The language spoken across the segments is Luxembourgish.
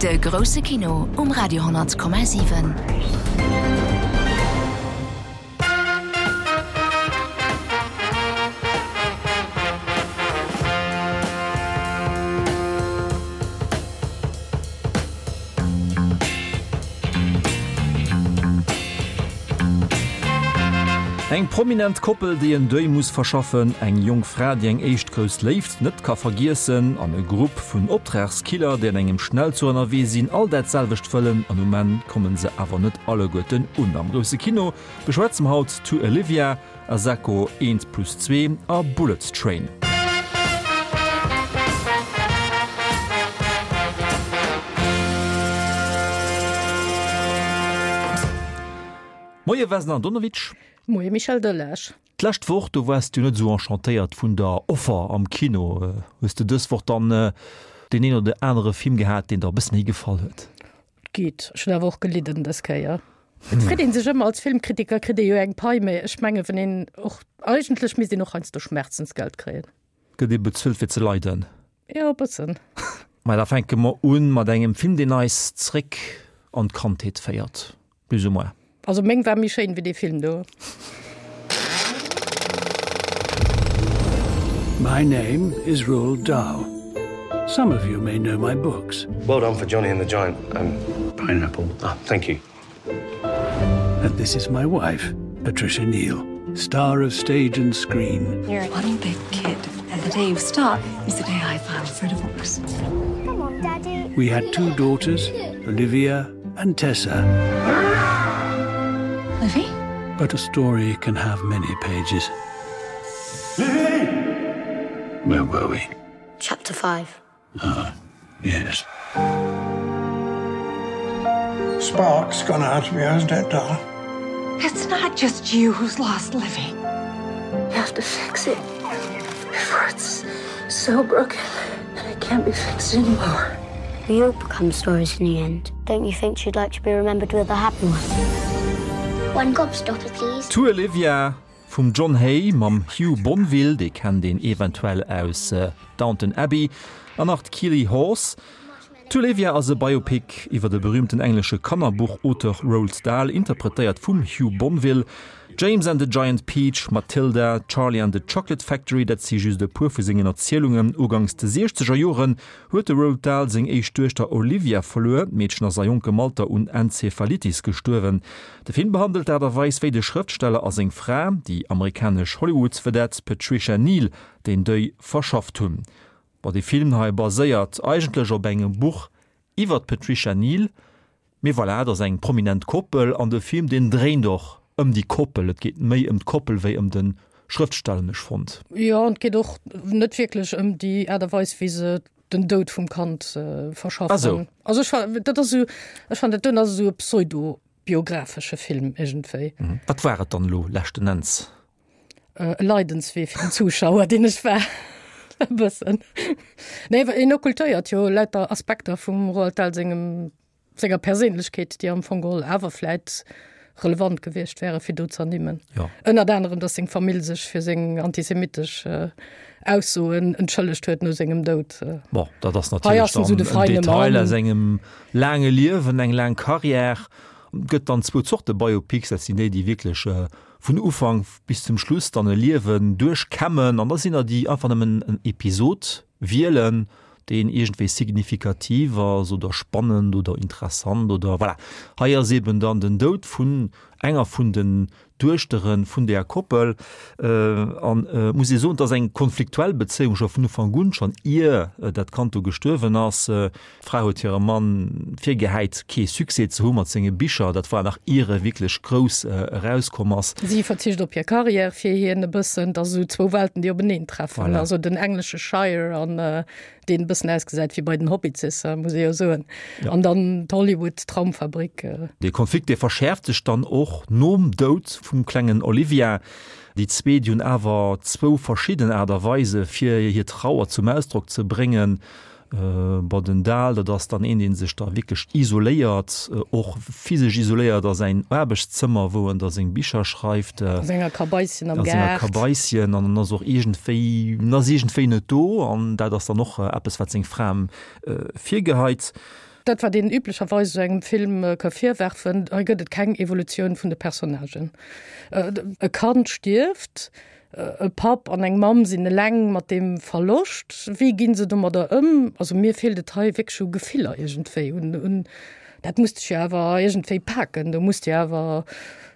De grousse Kino um Radio 10,7. Eng prominent Koppel, déi en Deuil muss verschaffen, eng jonk Fra, déi eng éischt grouss Léift net ka vergiessen, an e Grupp vun Optragskiller, déi an engem Schnellzuch ënnerwee sinn, all dat selwecht wëllen, an um Enn komme se awer net alleguerten un. Am grousse Kino beschwätze mer haut To Olivia, Asako eent plus zwee a Bullet Train. Moie Vesna Andonovic. Moie Michel Delage. D'lescht Woch, do waars du net esou enchantéiert vun der Offer am Kino. Hues de dës Woch dann deen een oder anere Film gehat, deen der e bësse méi gefall huet? Geet. Ech hunn awer och gelidden dës Kéier. Et freet een sech ëmmer, als Filmkritiker kritt ee jo eng Pai, mä ech menge wann een och, eigentlech misst een och heiansdo Schmerzensgeld kréien. Gëtt ee bezuelt fir ze leiden? Jo, e bëssen. Mä da fänke mer un mat engem Film, deen eis zréck an d'Kandheet féiert, plus ou moins. Also meng war méi schéin wéi dee Film do. My name is Roald Dahl. Some of you may know my books. Well done for Johnny and the Giant um, Pineapple. Ah, thank you. And this is my wife, Patricia Neal, star of stage and screen. You're one big kid, and the day you stop is the day I file for divorce. Come on, Daddy. We had two daughters, Olivia and Tessa. Livy? But a story can have many pages. Livy! Where were we? Chapter 5. Ah, yes. Spark's gone out of you, hasn't it, darling? It's not just you who's lost Livy. You have to fix it before it's so broken that it can't be fixed anymore. We all become stories in the end. Don't you think she'd like to be remembered with a happy one? One gobstopper, please. To Olivia vum John Hay mam Hugh Bonneville, dee kennt een eventuell aus Downton Abbey, an nach d'Keeley Hawes. To Olivia ass e Biopic iwwer de berüümten englesche Kannerbuchauteur Roald Dahl, interpretéiert vum Hugh Bonneville. James and the Giant Peach, Matilda, Charlie and the Chocolate Factory, dat si just e puer vu sengen Erzielungen. Uganks de siechzeger Joren huet de Roald Dahl seng éischt Duechter Olivia verluer. D'Meedchen ass a jonkem Alter un Enzephalitis gestuerwen. De Film behandelt d'Aart a Weis, wéi de Schrëftsteller a seng Fra, déi amerikanesch Hollywood-Vedette Patricia Neal, deen Deuil verschafft hunn. Bon, dee Film hei baséiert eigentlech op engem Buch iwwer d'Patricia Neal, mee voilà, et ass eng prominent Koppel an de Film, deen dréint och ëm déi Koppel. Et geet méi ëm d'Koppel wéi ëm de Schrëftsteller, hunn ech fonnt. Jo, an et geet och net wierklech ëm déi Aart a Weis, wéi se den Doud vum Kand verschaffen. Ah sou. Also ech fa, dat ass esou, ech fannen dat doen ass esou e pseudo-biographesche Film iergendwéi. Wat war et dann elo leschten Enns? E Leidenswee fir den Zuschauer, deen ech war. E bëssen. Nee, well en occultéiert jo lauter Aspekter vum Roald Dahl sengem, senger Perséinlechkeet, déi am Fong geholl awer vläit relevant gewiescht wäre fir do ze ernimmen. Ja. Ënnert anerem, datt seng Famill sech fir seng antisemitesch Aussoen entschëllegt huet no sengem Doud. Bon, dat ass natierlech dann en Detail aus engem laange Liewen, eng laang Carrière. Et gëtt dann zwou Zorte Biopics, dat sinn déi, déi wierklech vun Ufank bis zum Schluss dann e Liewen duerchkämmen an da sinn der déi einfach nëmmen en Episod wielen, deen iergendwéi signifikativ ass oder spannend oder interessant oder voilà. Hei ass eben dann den Doud vun enger vun den Duechtere vun där Koppel an et muss ee soen, et ass eng konfliktuell Bezéiung scho vun Ufank un, schonn ier dat Kand do gestuerwen ass. D'Fra huet hirem Mann virgehäit, kee Succès ze hu mat senge Bicher. Dat war nach ier e wierklech grouss erauskomm ass. Si verzicht op hir Karriär fir hien e bëssen. Et ass esou zwou Welten, déi openeen treffen. Voilà. Also den englesche Shire an deen e bëssen ausgesäit wéi bei den Hobbitsisser, muss ee jo soen. Ja. An dann d'Hollywood-Traumfabrik. Dee Konflikt, dee verschäerft sech dann och nom Doud vum klengen Olivia. Déi zwee, déi hunn awer zwou verschidden Aart a Weise fir hir Trauer zum Ausdrock ze bréngen. Bon, den Dahl, dat ass dann een, dee sech da wierklech isoléiert, och physesch isoléiert a säin Aarbechtszëmmer, wou en da seng Bicher schreift. A senger Kabaisschen am Gaart. A senger Kabaisschen. An en ass och iergendwéi, en ass iergendwéi net do. An dat ass dann och eppes, wat seng Fra em virgeheit. Dat wat een üblecherweis esou engem Film ka virwerfen, hei gëtt et keng Evolutioun vun de Personnagen. E Kand stierft, e Papp an eng Mamm sinn eleng mat deem Verloscht. Wéi ginn se domadder ëm? Also mir feelt et hei wierklech u Gefiller iergendwéi, un, un dat muss dech jo awer iergendwéi paken, do muss de awer,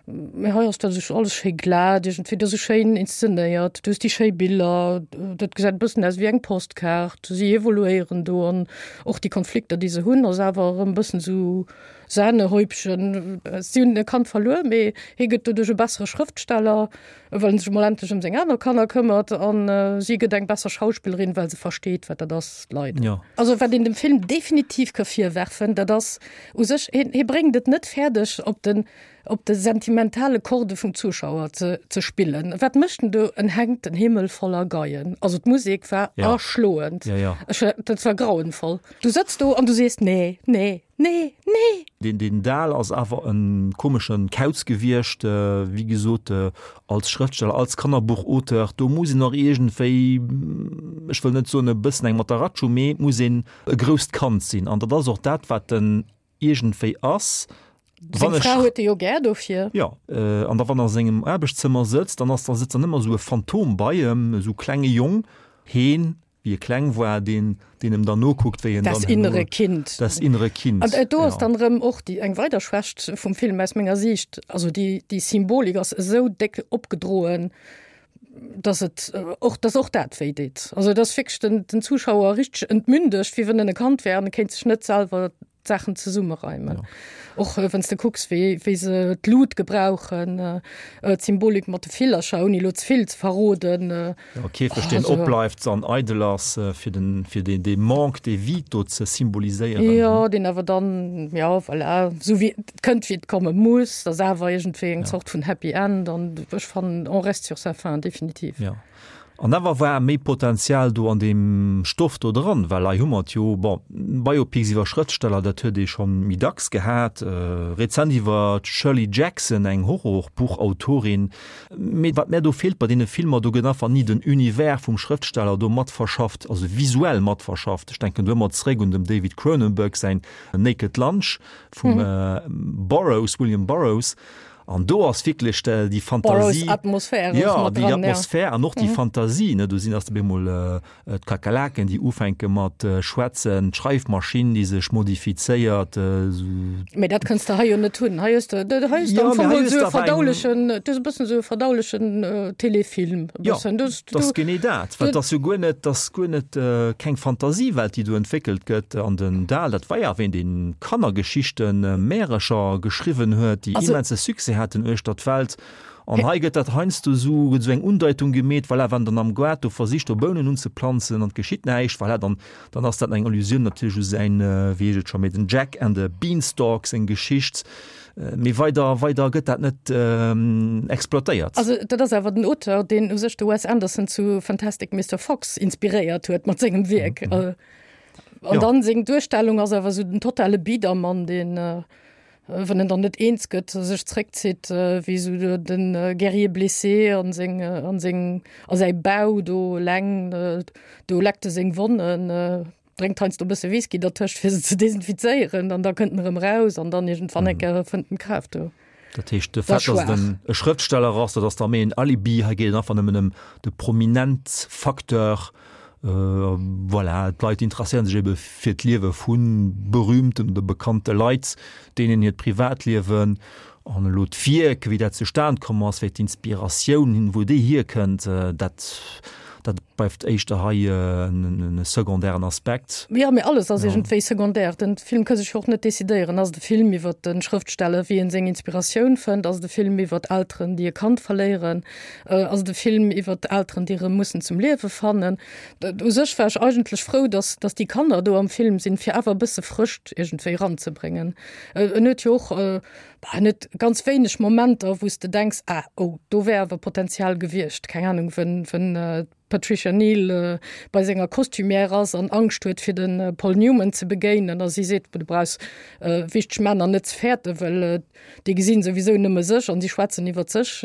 mee hei ass dat esou alles schéi glat iergendwéi, dat ass esou schéin inszenéiert, du hues déi schéi Biller, dat gesäit e bëssen aus wéi eng Postkaart, si evoluéieren do an och déi Konflikter, déi se hunn, ass awer erëm e bëssen esou Sahnehäubchen. Si hunn e Kand verluer, mee hie gëtt doduerch e bessere Schrëftsteller, well en sech emol endlech ëm seng aner Kanner këmmert an si gëtt eng besser Schauspillerin, well se versteet, wat dat ass, leiden. Jo. Also wat een dem Film definitiv ka virwerfen, dat ass u sech, hien, hie bréngt et net fäerdeg, op den, op de sentimentale Corde vum Zuschauer ze, ze spillen. Wat mécht en do? En hänkt den Himmel voller Geien. Also d'Musek war Ja. erschloend. Ja, ja. Ech, dat war grauenvoll. Du sëtz do an du sees, nee, nee. Nee, nee! Deen deen Dahl ass awer e komeschen Kauz gewiescht, wéi gesot, als Schrëftsteller, als Kannerbuchauteur, do muss een och iergendwéi, ech wëll net soen e bëssen eng Matteratsch hu, mee et muss een e grousst Kand sinn. An dat ass och dat, wat en iergendwéi ass. Seng Fra huet e jo gär dofir. Jo, an da wann en a sengem Aarbechtszëmmer sëtzt, dann ass da sëtzt dann ëmmer esou e Phantom bei em, esou klenge Jong, heen wéi e kleng war, deen, deen em dann nokuckt, wéi en Das dann innere herno, Kind. Das innere Kind, An do ass ja. dann erëm och déi, eng weider Schwächt vum Film aus menger Siicht. Also déi, déi Symbolik ass esou déck opgedroen, dass et och, dass och dat wéi deet. Also et ass wierklech den, den Zuschauer richteg entmündegt, wéi wann en e Kand wär an e kéint sech net selwer d'Saachen zesummereimen. Ja. Och äh, wann s de kucks, wéi, wéi se d'Lut gebrauchen, äh, äh, d'Symbolik mat de Villercher, ouni lo ze vill ze verroden. Äh, Ja, Käfeg, deen also, opbleift an eidel ass, äh, fir den, fir den, dee Manque de vie do ze symboliséieren. Ja, deen awer dann, ja, voilà, sou wéi et kënnt, wéi et komme muss, ass awer iergendwéi eng Ja. Zort vun Happy End an ech fannen, on reste sur sa faim, definitiv. Ja. An awer war méi Potenzial do an deem Stoff do dran, well hei hu mer et jo, bon, Biopics iwwer Schrëftsteller, dat huet ee schonn méi dacks gehat, rezent iwwer d'Shirley Jackson, eng Horrorbuchautorin. Mee wat mär do feelt bei deene Filmer, do gëtt einfach ni den Univers vum Schrëftsteller do mat verschafft, also visuell mat verschafft. Ech denken do ëmmer zeréck un dem David Cronenberg säin Naked Lunch vum Burroughs, William Burroughs. An do ass wierklech déi Fantasie, Atmosphär ja, déi Atmosphär an och déi Fantasie, ne, do sinn ass op eemol d'Kakerlaken, déi ufänke mat schwätzen, d'Schreifmaschinn, déi sech modifizéiert, esou. Mee dat kënns de hei jo net hunn. Hei hues de, hei hues de am Fong esou e verdaulechen, du hues e bëssen esou e verdaulechen Telefilm, e bëssen. Jo, dat ass genee dat, well et ass jo guer net, dat ass guer net keng Fantasiewelt, déi do entwéckelt gëtt. An den Dahl, dat war jo awer een, dee Kannergeschichten, Märercher geschriwwen huet, déi immense Succès haten uechter d'Welt. An hei gëtt dat heiansdo esou, gëtt esou eng Undeitung gemeet, voilà, wann dann am Gaart do versicht do Bounen unzeplanzen an et geschitt näischt, voilà, dann, dann ass dat eng Allusioun natierlech u säin, wéi heescht et scho méi, den Jack and the Beanstalk seng Geschicht. Mee weider, weider gëtt dat net exploitéiert. Also dat ass awer den Auteur, deen u sech de Wes Anderson zu Fantastic Mister Fox inspiréiert huet mat sengem Wierk. An dann seng Duerstellung ass awer esou den totale Biedermann, deen, wann en dann net eens gëtt, sech zréckzitt wéi esou den Guerrier blessé an seng, an seng, a säi Bau do eleng, do leckt e seng Wonnen, drénkt heiansdo e bësse Whisky dertëscht, fir se ze desinfizéieren, an da kënnt en erëm eraus an dann iergendwann eng Kéier fënnt en d'Kraaft do. Dat heescht, de Fait, datt en e Schrëftsteller ass, dat ass da méi en Alibi. Hei geet et einfach nëmmen ëm de Prominent-Facteur. Voilà, d'Leit interesséieren sech ebe fir d'Liewe vu berühmten oder bekannte Leit, deenen hiert Privatliewen. An elo d'Wierk, wéi dat zustan komm ass, wéi d'Inspiratioun, wou déi hierkënnt, dat, dat bleift éischter hei e secondairen Aspekt. Jo, mee alles ass iergendwéi secondaire. Den Film ka sech jo och net decidéieren. Ass et e Film iwwer de Schrëftsteller, wéi en seng Inspiratioun fënnt? Ass et e Film iwwer Elteren, déi e Kand verléieren? Ass et e Film iwwer Elteren, déi erëm mussen zum Liewe fannen? U sech war ech eigentlech frou, dass, dass déi Kanner do am Film sinn, fir awer e bësse Frëscht iergendwéi eranzebréngen. En huet jo och bah, net ganz wéineg Momenter, wou s de denks, ah, oh, do wär awer Potenzial gewiescht. Keng Anung, wenn, wenn d'Patricia. d'Patricia Neal bei senger Costumière ass an Angscht huet fir de Paul Newman ze begéinen a si seet, du brauchs wichteg Männer net ze fäerten, well déi gesinn souwisou nëmme sech an si schwätzen iwwer sech.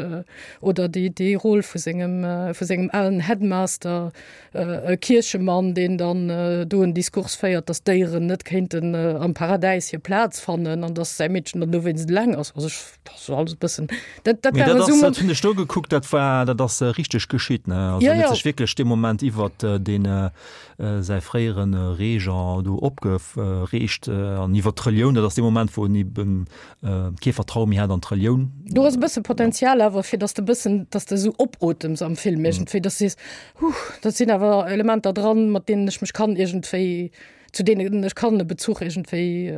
Oder déi déi Rôle vu sengem vu sengem alen Headmaster, e Kierchemann, deen dann do en Diskurs féiert, datt d'Déieren net kéinten am Paradäis hir Plaz fannen an datt säi Meedchen dann dowéinst eleng ass. Also ech, dat ass alles e bëssen, dat dat Mee war dat esou ass, dat hunn ech do gekuckt, dat war, dat ass richteg geschitt, ne? Also Ja, en huet ja. sech wierklech dee Moment iwwert deen säi fréiere Régent do opgereegt an iwwert d'Relioun, dat ass dee Moment, wou en eben kee Vertraue méi hat an d'Relioun. Do ass e bësse Potenzial awer, fir datt s de e bëssen, datt s de esou opotems am Film iergendwéi, datt s de sees, Huh, dat sinn awer Elementer dran, mat deenen ech mech kann iergendwéi, zu deenen ech kann e Bezuch iergendwéi,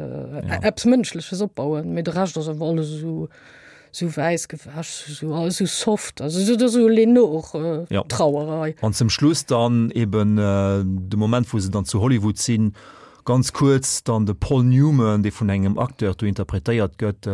eppes Mënschleches opbauen. Mee de Rescht ass awer alles esou Sou wäiss gewäsch, sou alles sou soft, also sou sou Lenore Ja. Trauerei. An zum Schluss dann eben de Moment wou se dann zu Hollywood sinn, ganz kuerz dann de Paul Newman, dee vun engem Acteur do interpretéiert gëtt.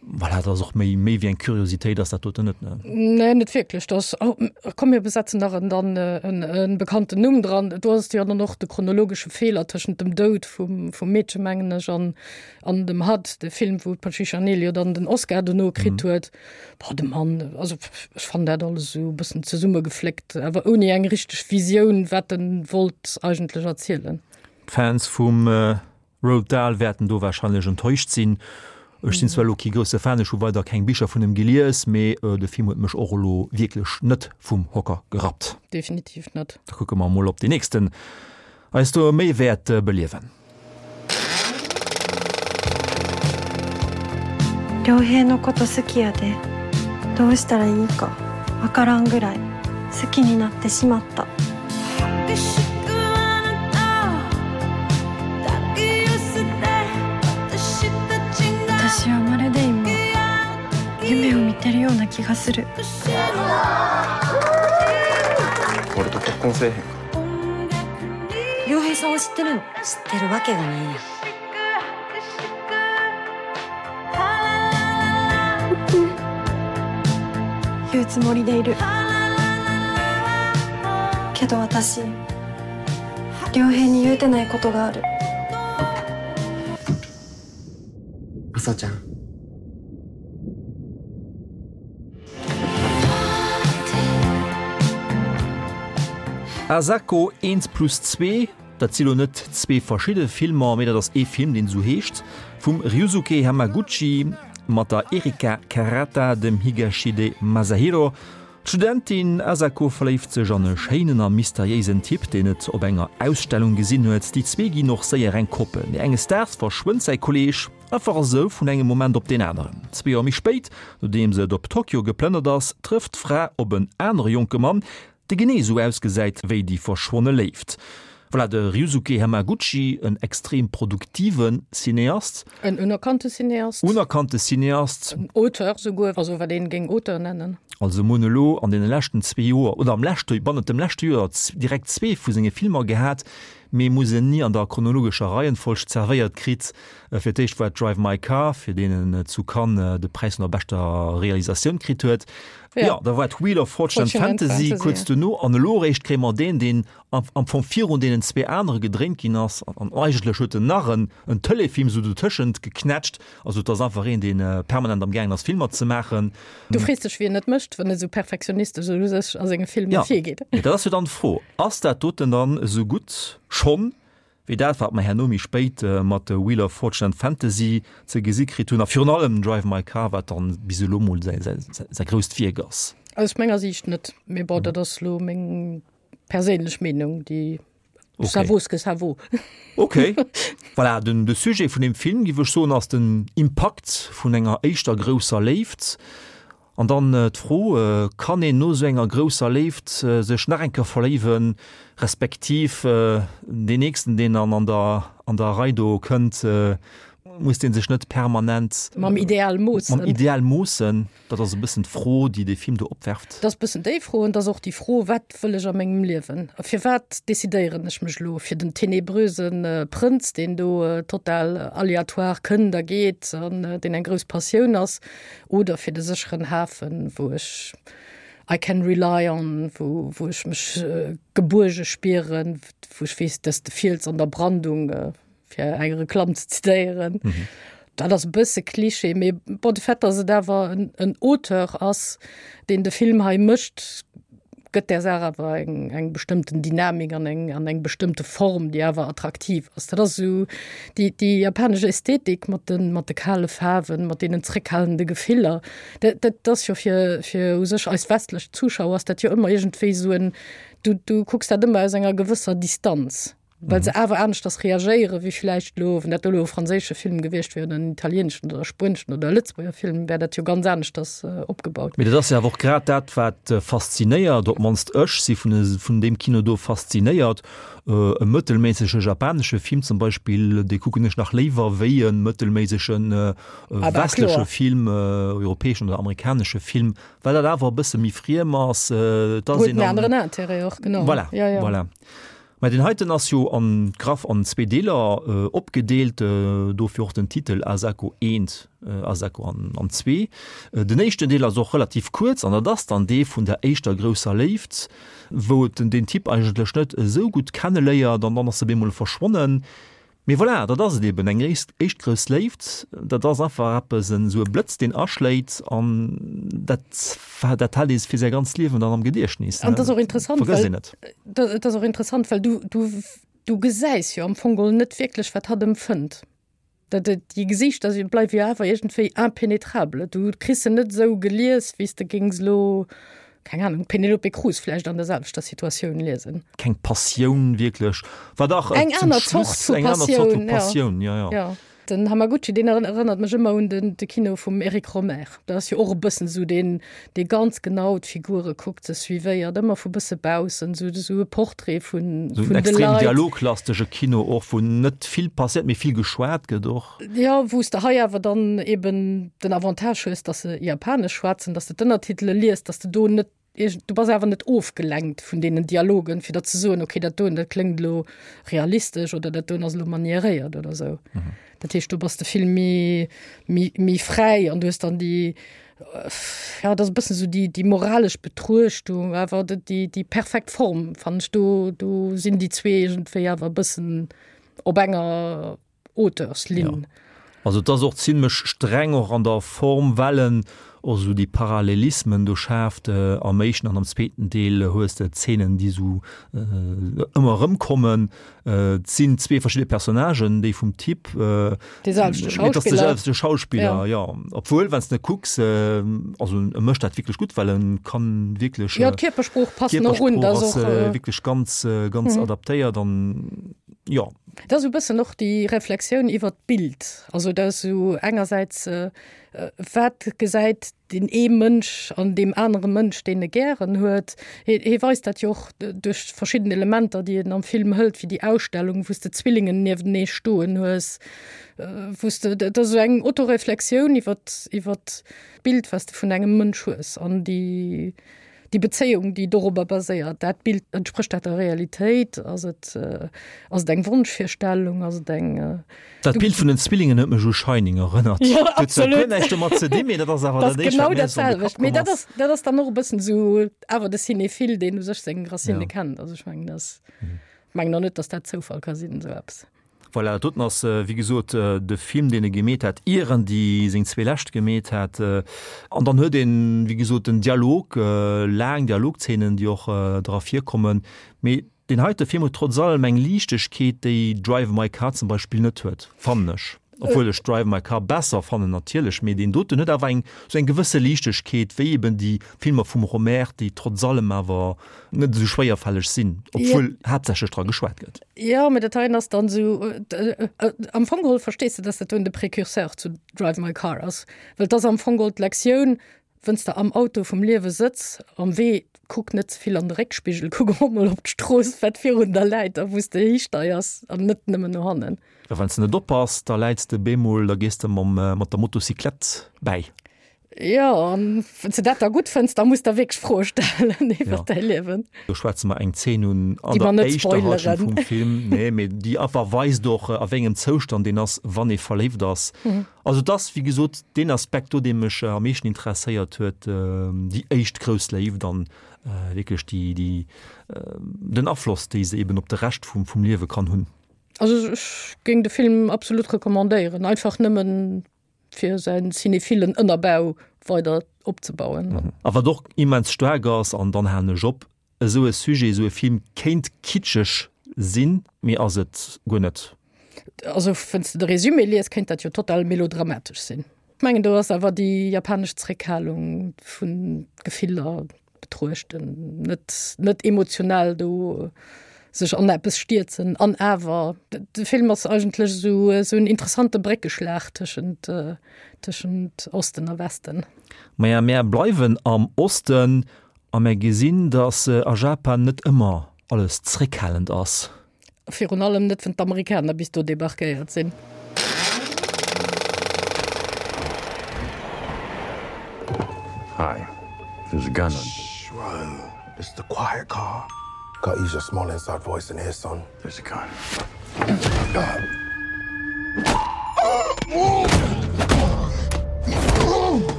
Voilà, dat ass och méi méi wéi eng Kuriositéit ass dat doten net, ne? Nee, net wierklech. Dat ass, oh, komm mir besetzen nach en dann en en bekannten Numm dran. Do ass jo dann och de chronologesche Feeler tëschent dem Doud vum vum Meedche mengen ech an An dem Hud, de Film, wou d'Patricia Neal jo dann den Oscar dono kritt huet. Boah, de Mann, also ech fannen dat alles esou e bëssen zesummegefléckt, awer ouni eng richteg Visioun, wat en wollt eigentlech erzielen. D'Fans vum Roald Dahl wäerten do warscheinlech enttäuscht sinn. Ech sinn zwar elo kee grousse Fan, ech hu weider keng Bicher vun em gelies, mee de Film huet mech och elo wierklech net vum Hocker gerappt. Definitiv net. Da kucke mer emol, ob deen nächsten eis do méi wäert beliewen. 良平のこと好きやでどうしたらいいかわからんぐらい好きになってしまった私はまるで今夢を見てるような気がする俺と結婚せえへんか良平さんを知ってるの知ってるわけがないやん言うつもりでいるけど私良平に言うてないことがある朝ちゃん Asako eent plus zwee, dat si lo net zwee verschidde Filmer, mee dat ass ee Film, deen esou heescht, vum Ryusuke Hamaguchi mat der Erika Karata, dem Higashide Masahiro. D'Studentin Asako verléift sech an e schéinen a mysteriéisen Typ, deen et op enger Ausstellung gesinn huet. Déi zwee ginn och séier eng Koppel, mee enges Daags verschwënnt säi Kolleeg einfach esou vun engem Moment op deen aneren. Zwee Joer méi spéit, nodeems et op Tokio geplënnert ass, trëfft d'Fra op en anere jonke Mann, dee genee esou ausgesäit wéi déi verschwonne Léift. Voilà, de Ryusuke Hamaguchi, en extrem produktive Cineast. En unerkannte Cineast. Unerkannte Cineast. En Auteur souguer, also wat een géing Auteur nennen. Also mir hunn elo an deene leschten zwee Joer, oder am leschte, bannent dem leschte Joer direkt zwee vu senge Filmer gehat, mee mir hu se ni an der chronologescher Reihenfolg zerwéiert kritt. Fir d'éischt war et Drive My Car, fir deen en zu Cannes de Präis vun der beschter Realisatioun kritt huet. Jo, da war et Wheel of Fortune and Fantasy kuerz duerno, an elo eréischt kréie mer deen, deen am Fong virun deenen zwee anere gedréint ginn ass, an eigentlech huet en nach en en Telefilm esou dotëschent geknätscht. Also et ass einfach een, dee permanent am gaangen ass Filmer ze maachen. Du frees dech wéi en et mécht, wann e sou perfektionistesch u sech a senge Filmer virgeet. Jo, dat ass jo dann d'Fro, ass dat doten dann esou gutt schonn wéi dat wat mer herno méi spéit mat Wheel of Fortune and Fantasy ze gesi kritt hunn a virun allem Drive My Car, wat dann bis elo mol säi säi grousst Wierk ass? Aus menger Siicht net, mee bon, dat ass elo meng perséinlech Meenung, déi okay. ça vaut ce que ça vaut. Okay. Voilà, den, de Sujet vun dem Film, giff ech soen, ass den Impakt vun enger éischter grousser Léift. An dann äh, d'Fro, äh, kann een no sou enger grousser Léift äh, sech nach eng Kéier verléiwen, respektiv äh, deen nächsten, deen dann an der, an der Rei do kënnt, äh, muss dee sech net permanent mam Ideal moossen. Mam Ideal moossen. Dat ass e bëssen d'Fro, déi dee Film do opwerft. Dat ass e bëssen déi Fro an et ass och déi Fro, Wat wëll ech a mengem Liewen? A firwat decidéieren ech mech elo fir den tenebröse Prënz, deen do total aléatoire kënnt a geet an deen eng grouss Passioun ass, oder fir de sécheren Hafen, wou ech. I can rely on, wou, wou ech mech gebuerge spieren, wou ech weess, dass de Fiels an der Brandung, fir eng Reklamm ze zitéieren. Mhm. Dat ass e bësse Klischee, mee bon, de Fait, dass et awer en, en Auteur ass, deen de Film hei mécht, gëtt där Saach awer eng, eng bestëmmten Dynamik an eng, an eng bestëmmte Form, déi awer attraktiv ass. Dat ass esou déi, déi japanesch Ästhetik mat de, mat de kale Faarwen, mat deenen zréckhalende Gefiller. Dat, dat ass jo fir, fir u sech eis westlech Zuschauer ass dat jo ëmmer iergendwéi esou en, du, du kucks dat ëmmer aus enger gewësser Distanz. Well se awer aneschters reagéiere wéi vläicht elo, wann dat elo e franséische Film gewiescht wier oder en italieeneschen oder e spueneschen oder e Lëtzebuerger Film, wär dat jo ganz aneschters opgebaut. Mee dat ass jo awer och grad dat, wat faszinéiert, op d'mannst ech si vun vun deem Kino do faszinéiert. E mëttelméissege japanesche Film zum Beispill, dee kucken ech nach léiwer wéi e mëttelméissege westleche Film, europäeschen oder amerikanesche Film, well dat awer e bësse méi friem ass. Et ass een an. Huet en aneren Intérêt och, genau. Voilà, voilà. Mä deen heiten ass jo an graff an zwee Deeler opgedeelt, dofir och den Titel Asako eent, Asako an zwee. Den éischten Deel ass och relativ kuerz an dat ass dann dee vun der éischter grousser Léift, wou et den Typ eigentlech net esou gutt kenneléiert an dann ass e bemol verschwonnen. Mee voilà, dat ass et eben, eng éischt grouss Léift, dat ass einfach eppes, esou e Blëtz, deen aschléit an dat, dat hält ee fir säi ganzt Liewen dann am Gediechtnis. An dat ass och interessant, well, dat ass och interessant, well du, du, du gesäis jo am Fong geholl net wierklech, wat hatt empfënnt. Dat, déi Gesiichter si bleiwe jo awer iergendwéi impenetrable. Du kriss se net esou gelies, wéi s de géings elo keng Ahnung, Penelope Cruz vläicht an der selwechter Situatioun liesen. Keng Passioun wierklech, war dach eng aner Zort vu Passioun, Passioun, ja, ja. Ja. Den Hamaguchi, deen erënnert mech ëmmer un den de Kino vum Eric Rohmer. Dat ass jo och e bëssen esou deen, dee ganz genau d'Figure kuckt, se suivéiert, ëmmer vu bësse baussen, esou esou e Portrait vun vun de Leit. Esou en extrem dialoglastege Kino och, wou net vill passiert, mee vill geschwat gëtt och. Jo, wou s de hei awer dann eben den Avantage hues, dass se Japanesch schwätzen, dass de d'Ënnertitele liest, dass de do net iergend, du bass awer net ofgelenkt vun deenen Dialogen, fir der ze soen, okay, dat doen, dat kléngt elo realistesch oder dat doen ass elo manieréiert oder esou. Dat heescht, do bass de vill méi, méi, méi fräi an du hues dann déi, ja, dat ass e bëssen esou déi, déi moralesch Betruechtung, awer déi, déi perfekt Form, fannen ech. Do, do sinn déi zwee iergendwéi awer e bëssen op enger Auteurslinn. Ja. Also et ass och zimlech streng och an der Form, well en och esou déi Parallelismen do schaaft. Am éischten an am zweeten Deel hues de Zeenen, déi esou ëmmer erëmkommen. Et sinn zwee verschidde Personnagen, déi vum Typ. Dee selwechte Schauspiller. Et ass de selwechte Schauspiller, jo. Obwuel, wann s de kucks, also e mécht dat wierklech gutt, well e kann wierklech. Jo, d'Kierpersprooch passt och un. D'Kierpersprooch ass wierklech ganz, ganz adaptéiert an jo. Dat ass esou e bëssen och déi Reflexioun iwwert d'Bild. Also dat ass esou engersäits, wat gesäit deen ee Mënsch an deem anere Mënsch, deen e gären huet. Hie hie weist dat jo och duerch verschidden Elementer, déi en am Film hëlt, wéi déi Ausstellung, wou s de Zwillingen niewentenee stoen hues, wou s de, dat ass esou eng Autoreflexioun iwwert iwwert d'Bild, wat s de vun engem Mënsch hues an déi Déi Bezéiung, déi dorobber baséiert, dat Bild, entsprécht dat der Realitéit? Ass et, ass et eng Wonschvirstellung? Ass et eng. Dat Bild vun den Zwillingen huet mech u Shining erënnert. Jo, absolut. Huet zwar guer näischt domat ze dinn, mee dat ass awer dat éischt, wat mir esou an de Kapp komm ass. Mee dat ass, dat ass dann och e bëssen esou awer de Cinéphile, deen u sech seng Racine kennt. Also ech mengen, dat, mengen och net, datt dat Zoufall ka sinn, esou eppes. Voilà, dat doten ass wéi gesot de Film, deen e gemeet hat, ier en déi seng zwee lescht gemeet hat. An dann huet een, wéi gesot, den Dialog, laang Dialogzeenen, déi och dra virkommen. Mee deen heite Film huet trotz allem eng Liichtegkeet, déi Drive My Car zum Beispill net huet, fannen ech. Obwuel ech Drive My Car besser fannen natierlech, mee deen doten huet awer eng esou eng gewësse Liichtegkeet, wéi eben déi Filmer vum Rohmer, déi trotz allem awer net esou schwéierfälleg sinn, obwuel haaptsächlech dra geschwat gëtt. Jo, mä dat heien ass dann esou, am Fong geholl verstees de, dass dat doen de Précurseur zu Drive My Car ass, well et ass am Fong geholl d'Lektioun, wënn s de am Auto vum Liewe sëtz, am Wee, kuck net ze vill an de Réckspigel, kuck och mol op d'Strooss, wat virun der läit a wou s de histeiers an net nëmmen no hannen. A wann s de net oppass, da läits de bemol, da gees de mam, mat der Motocyclette bäi. Jo, an wann s de dat da gutt fënns, da muss der wierklech Froe stellen iwwer däi Liewen. Do schwätze mer eng Zeen un an der éischter Halschent vum Film, nee, mee déi einfach weist och, a wéi engem Zoustand een ass, wann ee verléift ass. Also et ass, wéi gesot, deen Aspekt do, dee mech am meeschten interesséiert huet, déi éischt grouss Léift an wierklech déi, déi, den Afloss, déi se eben op de Rescht vum, vum Liewe kann hunn. Also ech géing de Film absolut recommandéieren, einfach nëmmen fir säin cinéphilen Ënnerbau weider opzebauen. A wat och immens staark ass, an dann halen ech op, esou e Sujet, esou e Film kéint kitscheg sinn, mee ass et guer net. Also wann s de de Résumé lies, kéint dat jo total melodramatesch sinn. Ech mengen do ass awer déi japanesch Zréckhalung vun Gefiller betruechten, net, net emotional do sech an eppes stierzen an awer de Film ass eigentlech esou esou en interessante Bréckeschlag tëschent tëschent Osten a Westen. Maja, mär bleiwen am Osten a mär gesinn, datt a Japan net ëmmer alles zréckhalend ass. Virun allem net, wann d'Amerikaner bis do debarquéiert sinn. Hi, there's a gun on. Shh, whoa. It's the quiet car. Gotta use your small inside voice in here, son. There's a gun.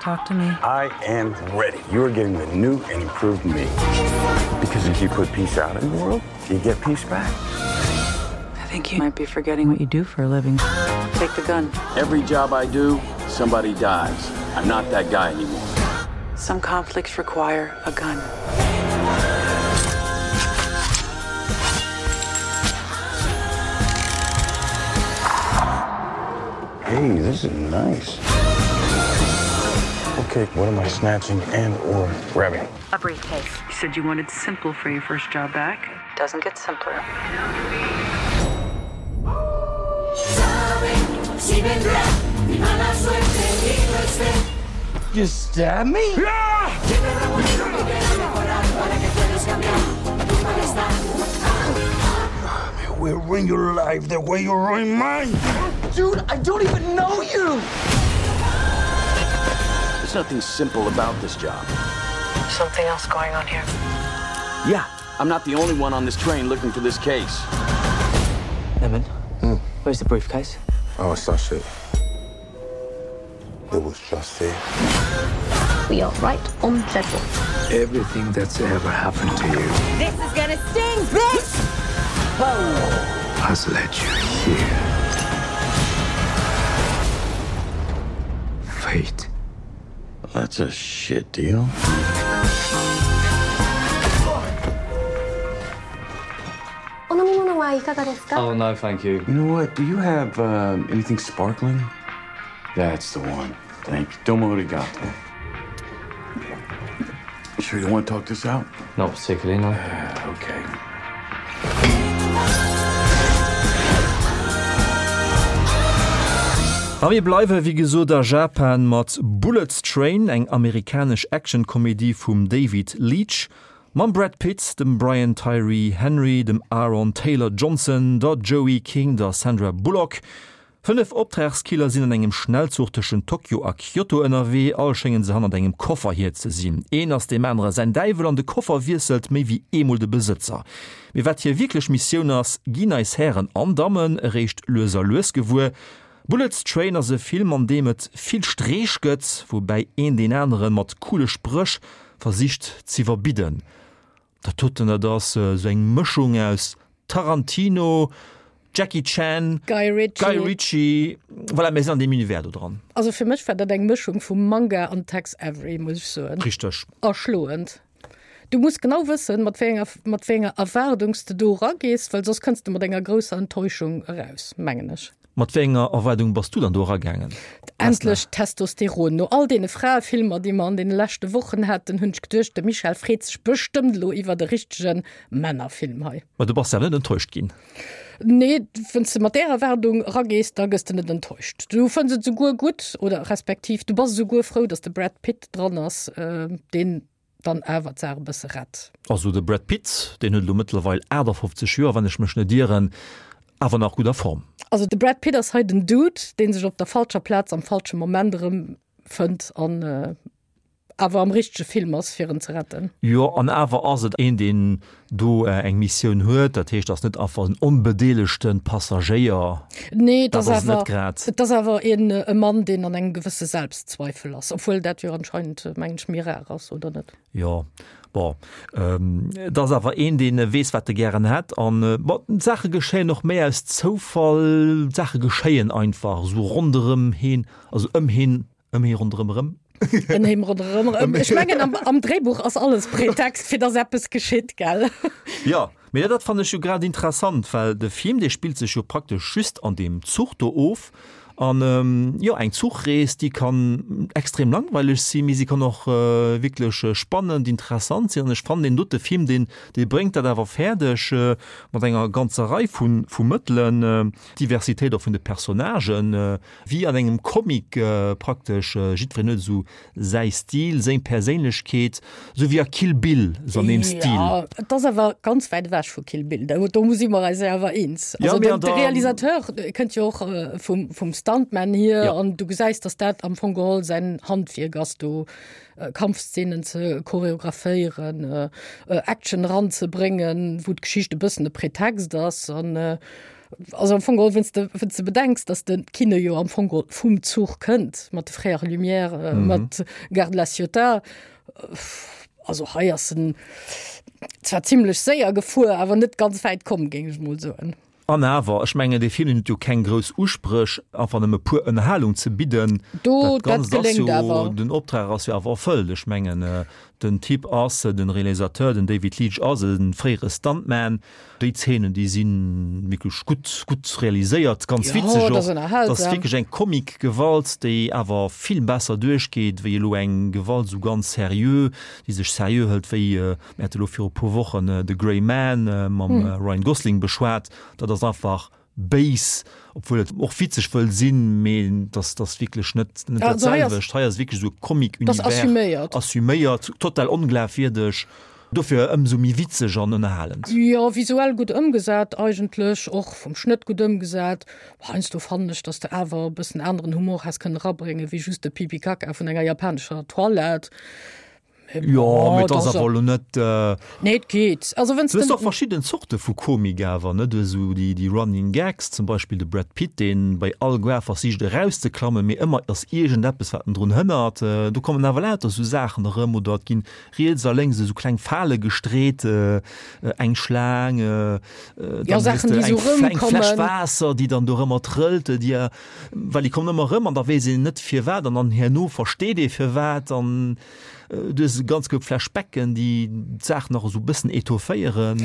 Talk to me. I am ready. You are getting the new and improved me. Because if you put peace out in the world, you get peace back. I think you might be forgetting what you do for a living. Take the gun. Every job I do, somebody dies. I'm not that guy anymore. Some conflicts require a gun. Hey, this is nice. Okay, what am I snatching and or grabbing? A briefcase. You said you wanted simple for your first job back. Doesn't get simpler. You stab me? Yeah! We'll ruin your life the way you ruined mine. Dude, I don't even know you. There's nothing simple about this job. Something else going on here. Yeah, I'm not the only one on this train looking for this case. Lemon, mm. where's the briefcase? Oh, it's that shit. It was just there. We are right on schedule. Everything that's ever happened to you. This is gonna sting, bitch! Whoa. Has led you here. Fate. That's a shit deal. Oh no, thank you. You know what? Do you have uh, anything sparkling? That's the one. Thank you. Domo arigato. Sure you want to talk this out? Not particularly, no. Uh, okay. A mir bleiwe wéi gesot a Japan mat Bullet Train, eng amerikanesch Actionkomedie vum David Leitch, mam Brad Pitt, dem Brian Tyree Henry, dem Aaron Taylor Johnson, der Joey King, der Sandra Bullock. 5 Optragskiller sinn an engem Schnellzuch tëschent Tokio a Kyoto ënnerwee. All schéngen se hannert engem Koffer hier ze sinn. Een ass deem anere säin Däiwel an de Koffer wiesselt méi wéi eemol de Besëtzer. Mee wat hir wierklech Missioun ass, ginn eis Hären an Dammen eréischt lues a lues gewuer. Bullet Train ass e Film an deem et vill Streech gëtt, woubäi een deen anere mat coole Spréch versicht z'iwwerbidden. Dat doten, dat ass esou eng Mëschung aus Tarantino, Jackie Chan, Guy Ritchie. Guy Ritchie. Voilà, mir sinn an deem Univers do dran. Also fir mech war dat eng Mëschung vu Manga an Tex Avery, muss ech soen. Richteg. Erschloend. Du muss genau wëssen, mat wéi enger, mat wéi enger Erwaardung s de do eragees, well soss kënns de mat enger grousser Enttäuschung eraus, mengen ech. Mat wéi enger Erwaardung bass du dann do eragaangen? Endlech Testosteron! No all deene Fraefilmer, déi mer an deene leschte Wochen haten, hunn ech geduecht, de Michel freet sech bestëmmt elo iwwert e richtege Männerfilm hei. Ma du bass awer net enttäuscht ginn? Nee, wann s de mat där Erwaardung eragees, da gëss de net enttäuscht. Du fënns et souguer gutt oder respektiv du bass esouguer frou, datt de Brad Pitt dran ass, deen dann awer d'Saach e bësse rett. Also de Brad Pitt, deen huet elo mëttlerweil 58 Joer, wann ech mech net ieren, awer nach gutt a Form. Also de Brad Pitt ass hei den Dude, dee sech op der falscher Plaz am falsche Moment erëmfënnt an awer am richtege Film ass, fir en ze retten. Jo, an awer ass et een, deen do eng Missioun huet. Dat heescht, ass net einfach en onbedeelegte Passagéier. Nee, et ass awer, et ass awer een e Mann, deen an engem gewësse Selbstzweifel ass, obwuel dat jo anscheinend, mengen ech, méi rar ass, oder net? Jo, bon, et ass awer een, dee weess, wat e gären hätt. An, bon, d'Saache geschéien och méi aus Zoufall. D'Saache geschéien einfach esou ronderëm heen, also ëm heen Ëm hee ronderëm erëm. Ëm hee ronderëm erëm. Ech mengen, am, am Dréibuch ass alles Pretext, fir dass eppes geschitt, gell? Jo, mee dat fannen ech jo grad interessant, well de Film, dee spillt sech jo praktesch just an deem Zuch do of. An, jo, eng Zuchrees, déi kann extrem langweileg sinn, mee si kann och wierklech spannend, interessant sinn. An ech fannen, deen dote Film, deen, dee bréngt dat awer fäerdeg, mat enger ganzer Rei vu, vu Mëttelen, d'Diversitéit och vun de Personnagen, Wéi an engem Comic praktesch, jiddwereen huet esou säi Stil, seng Perséinlechkeet, esou wéi a Kill Bill, esou an deem Stil. Jo, et ass awer ganz wäit ewech vu Kill Bill, do si mer eis jo awer eens. Also den de Realisateur kënnt jo och vum vum Stuntman hier an du gesäis, datt dat am Fong geholl säin Handwierk ass, do Kampfszenen ze choreographéieren, Action eranzebréngen, wou d'Geschicht e bëssen e Pretext ass an Also am Fong geholl, wenn's de, wenn's de bedenks, dass de Kino jo am Fong geholl vum Zuch kënnt, mat de Frères Lumière, äh, mhm. mat Gare de la Ciotat, äh, also hei ass en zwar ziemlech séier gefuer, awer net ganz wäit komm, géing ech mol soen. An awer, ech mengen, dee Film huet jo keng grouss Uspréch, einfach nëmme puer Ënnerhalung ze bidden. Do, dat dat geléngt jo, awer. Den Optrag ass jo awer erfëllt. Ech mengen, äh, den Typ ass, den Realisateur, den David Leitch ass e fréiere Stuntman, Déi Zeenen, déi si wierklech gutt, gutt realiséiert, ganz witzeg och. Dat ass wierklech eng Comic-Gewalt, déi awer vill besser duerchgeet, wéi elo eng Gewalt esou ganz seriö, déi sech seriö hëlt, wéi, mir hate elo viru e puer Wochen The Gray Man mam Ryan Gosling beschwat. Dat ass einfach béis, obwuel et och witzeg wëll sinn, mee dass dass wierklech net net dat selwecht. Hei ass wierklech esou e Comic-Univers. Assuméiert. Assuméiert, total onglafwierdeg, dofir ëmsou méi witzeg an ënnerhalend. Jo, visuell gutt ëmgesat eigentlech, och vum Schnëtt gutt ëmgesat. Heiansdo fannen ech, dass de awer e bëssen aneren Humor häss kënnen erabréngen, wéi just de Pipi-Kaka vun enger japanescher Toilette. Jo, mee et ass awer elo net. Nee, et geet. Also wenn's Du hues och verschidden Zorte vu Komik awer, ne? Du hues esou déi, déi Running Gags, zum Beispill de Brad Pitt, deen bei all Goar versicht erauszeklammen, mee ëmmer ass iergendeppes, wat en drun hënnert. Do kommen awer lauter esou Saachen erëm oder et ginn riets a lénks esou kleng Fale gestreet, eng Schlaang, dann hues de eng, eng Fläsch Waasser, déi dann do erëmmer trëllt, déi, well déi kommen ëmmer erëm an da weess een net firwat an dann herno versteet ee firwat an du hues e ganz koup Flashbacken, déi d'Saach nach esou e bëssen etofféieren.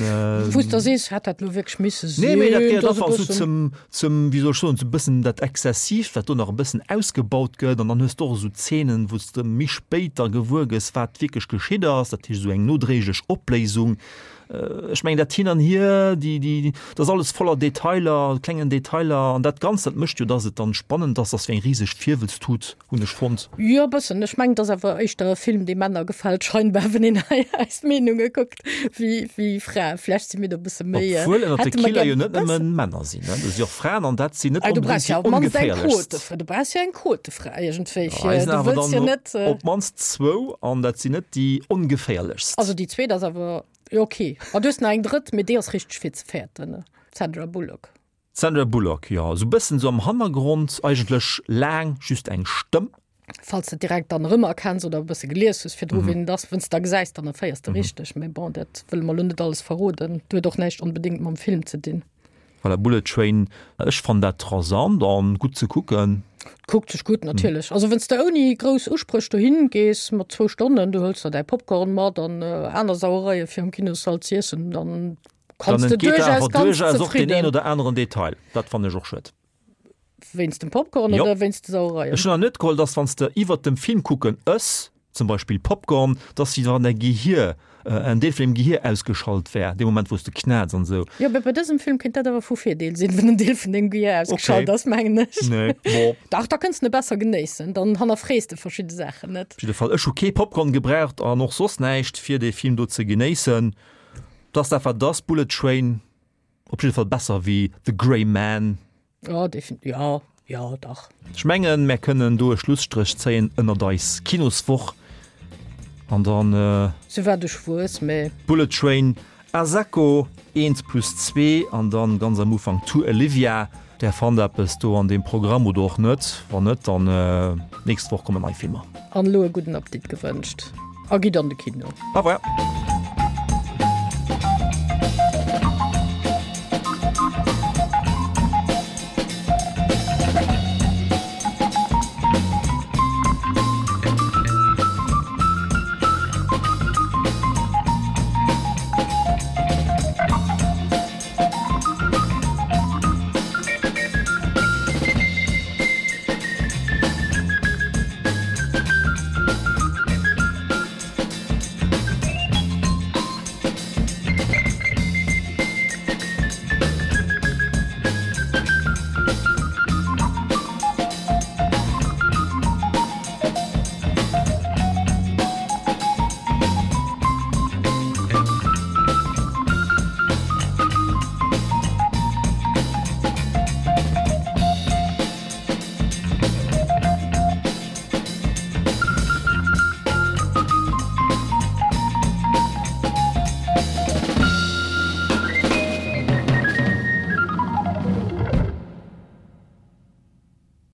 Wou s de sees, hätt dat elo wierklech misse sinn? Nee, mee dat gehéiert einfach esou zum, zum, wéi soll ech soen, esou e bëssen dat Exzessiivt, wat do nach e bëssen ausgebaut gëtt an dann hues de och esou Zeenen, wou s de méi spéit da gewuer gëss, wat wierklech geschitt ass, dat heescht esou eng nodréiglech Opléisung. Ech mengen dat hin an hier, déi, déi, dat ass alles voller Detailer, klengen Detailer an dat Ganzt, dat mécht jo, dass et dann spannend ass, ass wéi eng riseg Virwëlztut, hunn ech fonnt. Jo, e bëssen. Ech mengen, et ass awer éischter e Film, dee Männer gefält scheinbar, wann een hei eis Meenunge kuckt, wéi, wéi Fraen. Vläicht si mir do e bësse méi, Obwuel ënnert de hätte mer Killer gär jo net nëmmen Männer sinn, ne, do si och Fraen an dat sinn net Ah, du brauchs onbedéngt jo déi op d'mannst eng ongeféierlechst. Quote, du brauchs jo eng Quotefra iergendwéi Ja, hei fir, sinn du awer wëlls jo dann net. op d'mannst zwou an dat sinn net déi ongeféierlechst. Also déi zweet ass awer, jo ok. An du hues nach eng drëtt, mee déi ass richteg fir ze fäerten, d'Sandra Bullock. D'Sandra Bullock, jo, esou bëssen esou am Hannergrond, eigentlech laang just eng Stëmm. Falls de direkt dann erëmerkenns oder e bësse gelies hues virdru wien et ass, wenn's de da gesäis, dann erféiers de richteg. Mee bon, dat wëlle mer elo net alles verroden. Dat huet och näischt onbedéngt mam Film ze dinn. Voilà, Bullet Train, ech fannen dat rasant an gutt ze kucken. Kuckt sech gutt natierlech. Also wann s de ouni grouss Uspréch dohin gees mat zwou Stonnen, du hëls der däi Popcorn mat an aner Sauereie fir am Kinossall z'iessen, dann kanns Dann de entgeet der duerchaus awer ganz duerchaus och deen een zefridden. oder aneren Detail. Dat fannen ech och schued. Wéinst dem Popcorn Jo. oder wéinst de Sauereien? Ech hunn nach net geholl, dass wann s de iwwert dem Film kucken ëss. zum Beispill Popcorn, dass wéi wann däi Gehier, en Deel vun deem Gehier ausgeschalt wär, dee Moment wou s de knätz an esou. Jo, mä bei dësem Film kéint dat awer vu Virdeel sinn, wann en Deel vun dengem Gehier ausgeschalt ass, mengen ech. Nee, bon. Dach, da kënns de e besser genéissen, dann hannerfrees de verschidde Saachen net. Op jidde Fall, ech hu kee Popcorn gebraucht an och soss näischt, fir dee Film do ze genéissen. T'ass dat wat et ass, Bullet Train. Op jidde Fall besser wéi The Gray Man. Jo, definitiv. Jo, jo, dach. Ech mengen, mär kënnen do e Schlusstréch zéien ënnert eis Kinoswoch an dann. Souwat ech wuess, mä. Bullet Train, Asako, Eent plus zwee an dann ganz am Ufank To Olivia. Där fannt eppes do an deem Programm oder och net. Wann net, dann nächst Woch kommen nei Filmer. An elo e gudden Appetit gewënscht a gitt an de Kino. Au revoir.